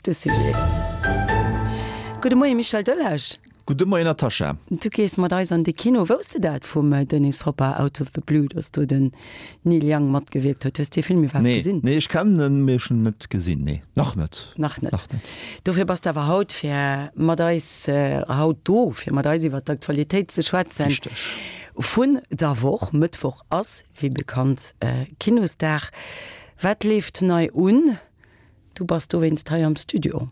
nächste Sujet. Gudde Moie Michel Delage. Gudde Moien Natascha. Du gees mat eis an de Kino. Wousst de dat vum Dennis Hopper, Out of the Blue, datt do den Neil Young matgewierkt huet? Hues de dee Film iwwerhaapt gesinn? Nee, ech kennen en, mee ech hunn en net gesinn. Nee, nach net. Nach net. Nach net. Dofir bass de awer haut fir mat eis, haut do, fir mat eis iwwer d'Aktualitéit ze schwätzen. Richteg. Vun der Woch. Mëttwoch ass, wéi bekannt, Kinosdag. Wat leeft nei un? Du bass dowéinst hei am Studio.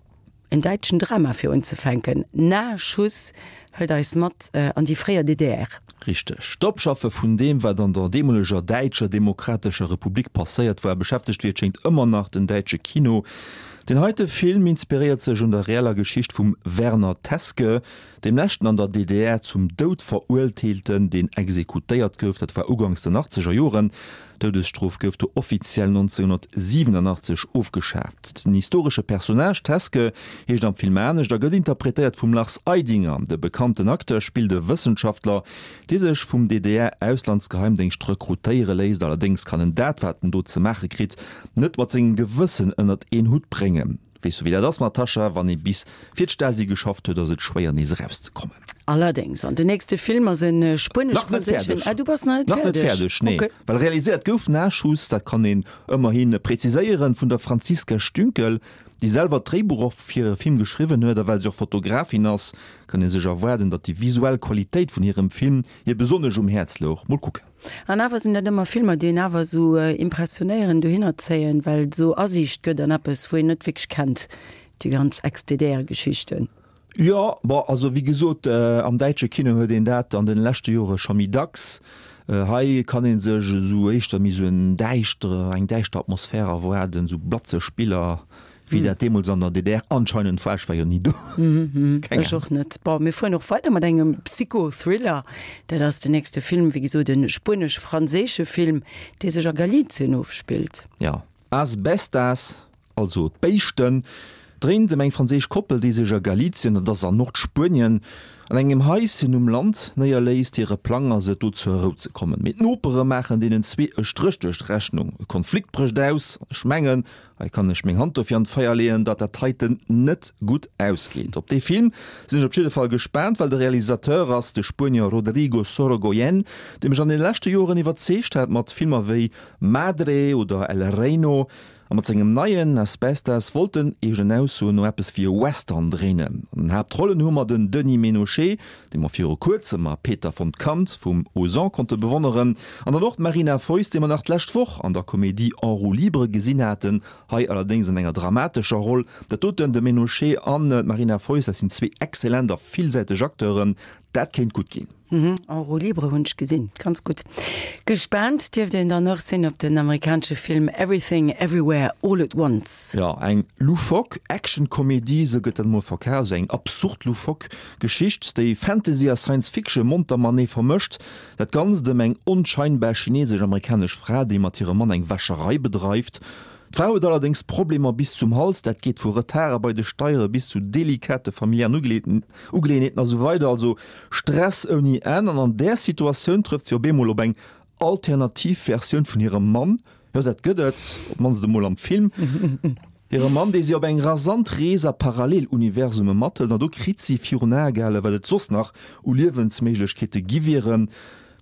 En däitschen Drama fir unzefänken. Nah-Schuss hëlt eis mat an déi fréier DDR. Richteg. D'Opschaffe vun deem, wat an der deemoleger Däitscher Demokratescher Republik passéiert war, beschäftegt wéi et schéngt ëmmer nach den däitsche Kino. Deen heite Film inspiréiert sech un der reeller Geschicht vum Werner Teske, deem leschten an der DDR zum Doud Veruerteelten, deen exekutéiert gouf. Dat war uganks den achtzeger Joren. D'Doudesstrof gouf do offiziell 1987 ofgeschaaft. Den historesche Personnage Teske heescht am Film anescht a gëtt interpretéiert vum Lars Eidinger. De bekannten Acteur spillt e Wëssenschaftler, dee sech vum DDR-Auslandsgeheimdéngscht rekrutéiere léisst. Allerdéngs kann en dat, wat en do ze maache kritt, net mat sengem Gewëssen ënnert een Hutt bréngen. Weess du wéi dat ass Natascha, wann ee bis fir d'Stasi geschafft huet, ass et schwéier nees erauszekommen. Allerdéngs, an den nächste Film ass en spuenesch-franséischen. Ah, du bass nach net fäerdeg. Nach net fäerdeg, nee. Okay. Well realiséiert gouf Nachschuss, dat kann een ëmmerhi präziséieren, vun der Franziska Stünkel, déi selwer d'Dréibuch och fir hire Film geschriwwen huet. A well se och Fotografin ass, kann ee sech erwaarden, datt déi visuell Qualitéit vun hirem Film hir besonnesch um Häerz louch. Mol kucken. An awer sinn dat ëmmer Filmer, déi een awer esou impressionéieren, dohinner zéien, well et esou Asiicht gëtt an eppes, wou een net wierklech kennt, déi ganz Ex-DDR-Geschichten. Jo, bon, also wéi gesot, am däitsche Kino huet een dat an den leschte Jore scho méi dacks. Hei kann ee sech esou éischter méi esou en däischtere, eng däischter Atmosphär erwaarden, esou blatzeg Biller, Wéi dat deemools an der DDR anscheinend war, ech war jo ni do. Keng Ech och net. Bon, mir fueren och weider mat engem Psycho-Thriller. Dat ass den nächste Film, wéi gesot e spuenesch-franséische Film, dee sech a Galicien ofspillt. Jo, As Bestas, also d'Béischten, dréint ëm eng franséisch Koppel, déi sech a Galicien, dat ass an Nordspuenien, an engem Haischen um Land néierléisst. Hire Plang ass et, do zur Rou ze kommen. Mee d'Nopere maachen deenen zwee e Stréch duerch d'Rechnung. E Konflikt brécht aus an ech mengen, Hei kann ech meng Hand dofir an d'Feier leeën, datt dat heiten net gutt ausgeet. Op dee Film sinn ech op jidde Fall gespaant, well de Realisateur ass de Spuenier Rodrigo Sorogoyen, dee mech an den leschte Joren iwwerzeegt hat mat Filmer wéi Madre oder El Reino. A mat sengem neien Asbestas wollt en, eegenen Aussoen no, eppes wéi e Western dréinen. An den Haaptrollen hu mer den Denis Ménochet, dee mer viru kuerzem a Peter von Kant vum Ozon konnte bewonneren, an dann och d'Marina Foïs, déi mer nach d'lescht Woch an der Komedie En roue libre gesinn haten, hei allerdéngs an enger dramatescher Roll. Dat doten, de Ménochet an d'Marina Foïs, dat sinn zwee exzellent a villsäiteg Acteuren, dat kéint gutt ginn. En roue libre hunn ech gesinn, ganz gutt. Gespaant dierft een dann och sinn op den amerikanesche Film Everything Everywhere All at Once. Jo, eng loufoque Action-Komedie, esou gëtt dat emol verkaf, also eng absurd loufoque Geschicht, déi Fantasy a Science Fiction monter matenee vermëscht. Dat Ganzt ëm eng onscheinbar chinesesch-amerikanesch Fra, déi mat hirem Mann eng Wäscherei bedreift. D'Fra huet allerdéngs Problemer bis zum Hals, dat geet vu Retarde bei de Steiere bis zu delikate familiären Ugeleeënheeten a sou weider, also Stress ouni Enn. An an där Situatioun trëfft si op eemol op eng alternativ Versioun vun hirem Mann, jo dat gëtt et, op d'mannst emol am Film, hire Mann, dee si op eng rasant Rees a Paralleluniversume mathëlt an do kritt si virun Ae gehale wat et soss nach u Liewensméiglechkeete gi wieren.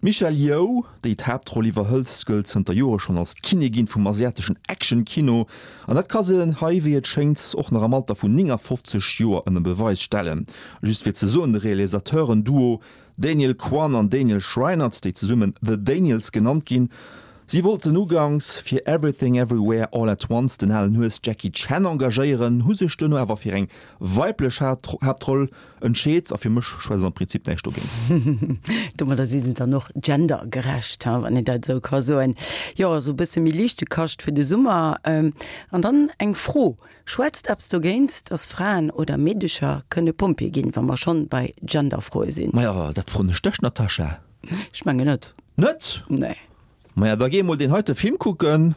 D'Michelle Yeoh, déi d'Haaptroll iwwerhëlt, gëllt zënter Jore schonn als d'Kinnigin vum asiateschen Action-Kino an dat ka se hei, wéi et schéngt, och nach am Alter vun 59 Joer ënner Beweis stellen. Just fir ze soen, de Realisateuren-Duo Daniel Kwan an Daniel Schreiner, déi zesummen The Daniels genannt ginn, si wollten uganks fir Everything Everywhere All at Once den alen Hues Jackie Chan engagéieren, hu sech duerno awer fir eng weiblech Haaptroll entscheet a fir mech schwätzt am Prinzip näischt dogéint. Domadder si se dann och gendergerecht, wann een dat esou ka soen. Jo, esou e bësse méi liichte Kascht fir de Summer. An dann eng Fro, Schwätzt eppes dogéint, dass Fraen oder Meedecher kënne Pompjee ginn, wa mer schonn bei Genderfroe sinn? Maja, dat froen ech dech, Natascha. Ech mengen net. Net? Nee. Maja, da géi emol deen heite Film kucken,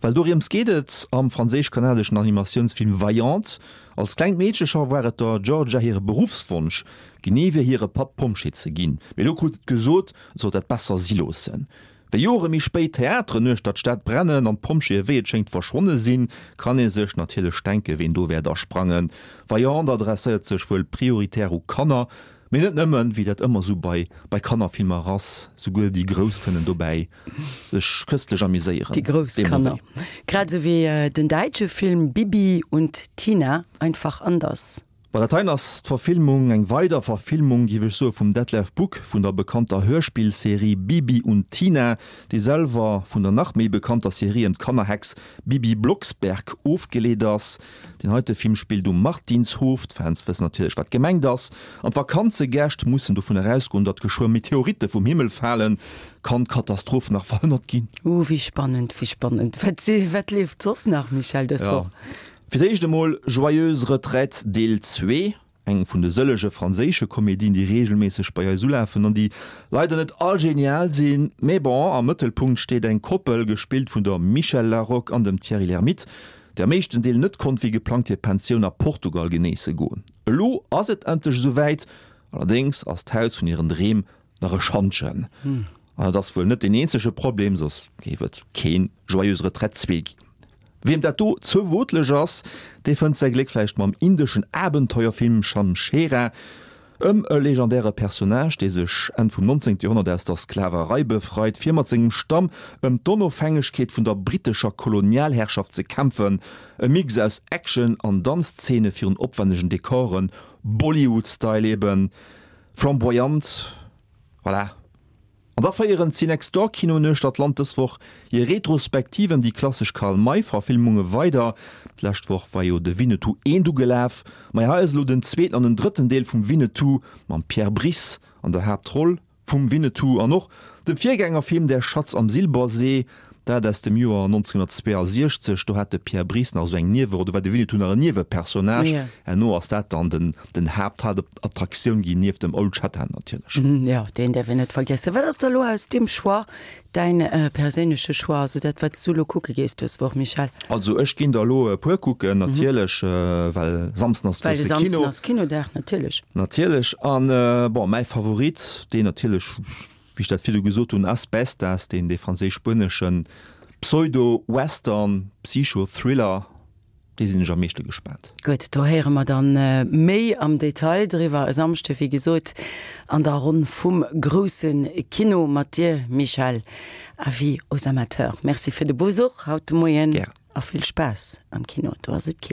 well doriems geet et am franséisch-kanadeschen Animatiounsfilm Vaillante. Als klengt Meedche scho war et der Georgia hire Beruffswonsch, genee wéi hire Papp, Pompjee ze ginn. Mee do krut et gesot, et sollt dat besser si loossen. Wéi Jore méi spéit d'Theateren uechter d'Stad brennen an d'Pompjeeë wéi et schéngt verschwonne sinn, kann ee sech natierlech denke ween do wäert asprangen. Vaillant adresséiert sech wuel prioritär u Kanner, mee net nëmmen, wéi dat ëmmer sou bei bei Kannerfilmer ass, souguer déi Grouss kënnen dobäi sech köstlech amuséieren. Déi grouss Kanner. Grad esou wéi den däitsche Film Bibi und Tina, einfach anders. Bei der Tain ass d'Verfilmung eng weider Verfilmung, géif ech soe, vum Detlev Buck vun der bekannter Hörspillserie Bibi und Tina, déi selwer vun der nach méi bekannter Serie ëm d'Kannerhex Bibi Blocksberg ofgeleet ass. Deen heite Film spillt um Martinshof, d'Fans wëssen natierlech wat gemengt ass, an d'Vakanzegäscht mussen dovun erausgoen, datt geschwë Meteoritte vum Himmel falen. Kann d'Katastroph nach verhënnert ginn? Uh, wéi spannend, wéi spannend. Wat, wat leeft soss nach, Michèle, dës Woch? Fir d'éischt emol Joyeuse Retraite Deel 2, eng vun de sëllege franséische Komedien, déi reegelméisseg bei eis ulafen an déi leider net all genial sinn. Mee bon, am Mëttelpunkt steet eng Koppel, gespillt vun der Michèle Laroque an dem Thierry Lhermitte, déi am éischten Deel net konnt wéi geplangt hir Pensioun a Portugal genéisse goen. Elo ass et endlech esou wäit, allerdéngs ass d'Haus vun hiren Dreem Nach e Schantjen. An et ass wuel net deen eenzege Problem, soss géif et keen Joyeuse Retraite 2 ginn. Wiem dat do ze wootleg ass, dee fënnt säi Gléck vläicht mam indeschen Abenteuerfilm Shamshera, ëm e legendäre Personnage, dee sech Enn vum 19. Joerhonnert aus der Sklaverei befreit, fir mat sengem Stamm ëm d'Onofhängegkeet vun der brittescher Kolonialherrschaft ze kämpfen. E Mix aus Action an Danzzeene virun opwännegen Dekoren, Bollywood-Style eben. Flamboyant, voilà. An da féieren d'Cinextdoor-Kinoen uechter d'Land dës Woch hir Retrospektiv ëm déi klassesch Karl May-Verfilmunge weider. D'lescht Woch war jo de Winnetou I ugelaf, ma hei ass elo den zweeten an den drëtten Deel vum Winnetou mam Pierre Brice an der Haaptroll vum Winnetou an och dem Virgängerfilm Der Schatz am Silbersee, dat aus dem Joer 1962. Do hat de Pierre Brice nach esou eng Nieweroll, do war de Winnetou nach en Niewepersonnage. Herno ass dat dann den den Haapthaaptattraktioun ginn, nieft dem Old Shatterhand natierlech. Jo, deen däerf een net vergiessen. Wat ass da lo aus deem Choix däin perséinleche Choix, also dat wat s du lo kucke gees dës Woch, Michèle? Also ech ginn der elo e puer kucken, natierlech, well Samsden ass grousse Kino. Well de Samsden ass Kinodag, natierlech. Natierlech. An bon, mäi Favorit, deen natierlech, wéi ech dat virdu gesot hunn, As Bestas, deen dee franséisch-spueneschen Pseudo-Western, Psycho-Thriller, dee sinn ech am meeschte gespaant. Gutt, do héiere mer dann méi am Detail driwwer e Samschde, wéi gesot, an der Ronn vum grousse Kino mat dir, Michèle. Avis aux amateurs. Merci fir de Besuch haut de Moien. Gären. A vill Spaass am Kino, do ass et kill.